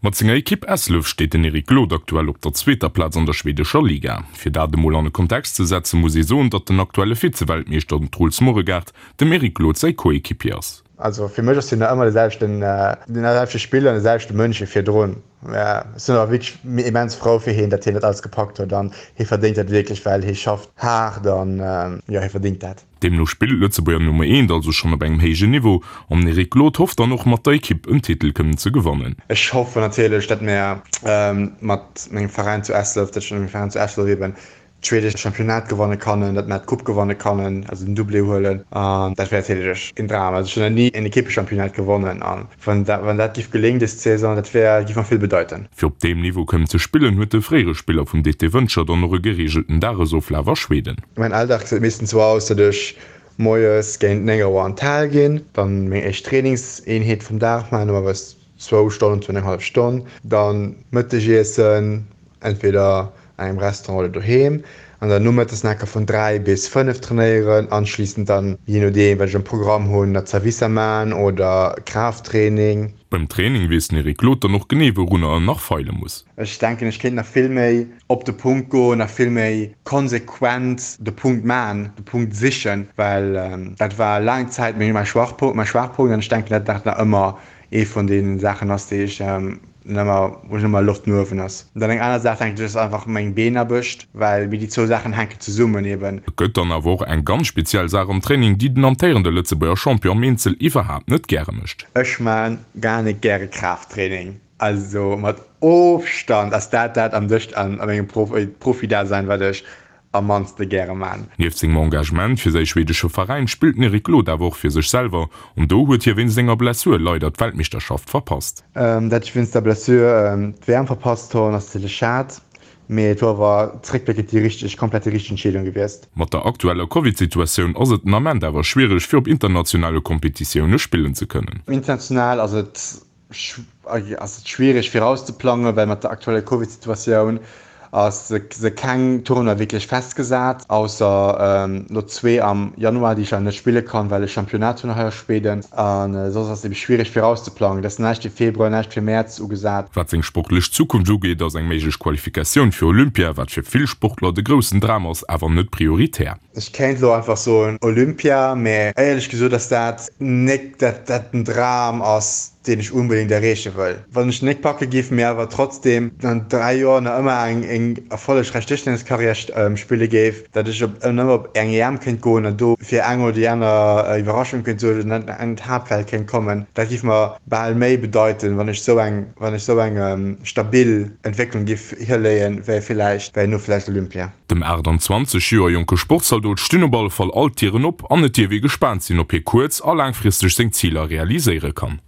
Mat senger Ekipp Eslöv steet den Eric Glod aktuell op der zweeter Plaz an der schweedescher Liga. Fir dat emol an e Kontext ze setzen, muss ee soen, datt den aktuelle Vize-Weltmeeschter, den Truls Moregard, dem Eric Glod säi Coéquipier ass. Also fir mech ass hien nach ëmmer de selwechten, den selwechte Spiller an de selwechte Mënsch wéi virdrun. Ech sinn awer wierklech immens frou fir hien, datt hien dat alles gepackt huet an hie verdéngt dat wierklech, well hie schafft haart an jo, hie verdéngt dat. Deemno spillt d'Lëtzebuerger Nummer Eent also schonn op engem héijen Niveau an den Eric Glod hofft dann och mat der Ekipp en Titel kënnen ze gewannen. Ech hoffen natierlech, datt mir mat mengem Veräin zu Eslöv, datt ech mat mengem Veräin zu Eslöv eben d'schweedescht Championnat gewanne kannen, datt mir d'Coupe gewanne kannen, also den Doublé huelen an dat wär natierlech en Dram. Also ech hunn nach ni en Ekippechampionnat gewonnen an wann dat wann dat giff geléngen dës Saison, dat wär giff mer vill bedeiten. Fir op deem Niveau kënnen ze spillen, huet de fréiere Spiller vum DT Wëntger dann och e gereegelten Dagesoflaf a Schweden. Mäin Alldag gesäit meeschtens sou aus, datt ech moies géint 9 Auer an d'Hal ginn, dann meng éischt Trainingseenheet vum Dag maachen, normalerweis zwou Stonnen, zwou an eng hallef Stonn, dann Mëttegiessen, entweder an engem Restaurant oder doheem, an dann nomëttes nach enker vun 3 bis 5 trainéieren, anschliessend dann, jee nodeem wat ech am Programm hunn, nach Zerwisser man oder Kraafttraining. Beim Training weess den Eric Glod dann och genee wourunner en nach feile muss. Ech denken ech kéint nach vill méi op de Punkt goen, nach vill méi konsequent de Punkt man, de Punkt sichen, well dat war laang Zäit meng mäi Schwachpunkt mäi Schwaachpunkt an ech denken dat dat nach ëmmer ee vun deenen Saachen ass déi ech ëmmer wou ech ëmmer Loft no uewen ass. An dann eng aner Saach denken ech ass einfach meng Beenaarbecht, well mir déi zwou Saachen hänken zesummen eben. Et gëtt dann awer och eng ganz speziell Saach am Training, déi den amtéierende Lëtzebuerger Champion am Eenzel iwwerhaapt net gäre mécht. Ech man gar net gäre Kraafttraining. Also mat Ofstand ass dat dat am dëscht an a mengem Profi-Dasein wat ech am mannste gäre man. Nieft sengem Engagement fir säi schwedesche Veräin spillt den Eric Glod awer och fir sech selwer an do huet hie wéinst enger Blessur leider d'Weltmeeschterschaft verpasst. Dat ech wéinst der Blessur d'WM verpasst honn ass natierlech schad, mee et wor awer zréckbléckend déi richteg, komplett déi richteg Entscheedung gewiesst. Mat der aktueller Covid-Situatioun ass et den Ament awer schwiereg fir op internationale Kompetitioune spillen ze kënnen. International ass et ass et schwiereg virauszeplangen, well mat der aktueller Covid-Situatioun ass se keng Tournoi wierklech festgesat, ausser elo zwee am Januar, déi ech awer net spille kann, well ech Championnat hunn hei a Schweden. A soss ass et ebe schwiereg virauszeplangen. Et ass näischt fir Februar, näischt fir Mäerz ugesat. Wat seng sportlech Zukunft ugeet, ass eng méiglech Qualifikatioun fir Olympia, wat fir vill Sportler de groussen Dram ass, awer net prioritär. Ech kéint elo einfach soen Olympia, mä éierlech gesot ass dat nek dat dat den Dram ass, deen ech unbedéngt erreeche wëll. Wann ech nek packe giff, mä awer trotzdem an 3 Joer nach ëmmer eng eng erfollegräich Dëschtenniskarriär spille géif, dat ech op ëmmer op eng EM kéint goen an do fir eng oder déi aner Iwwerraschung kéint suergen an an d'Haaptfeld kéint kommen, dat giff mer bal méi bedeiten, wann ech sou eng wann ech sou eng stabil Entwécklung giff hiléien, wéi villäicht wéi no villäicht Olympia. Dem 28 Joer jonke Sportzaldot stinn op alle Fall all d'Dieren op an et dierf ee gespaant sinn, ob hie kuerz a laangfristeg seng Ziler realiséiere kann.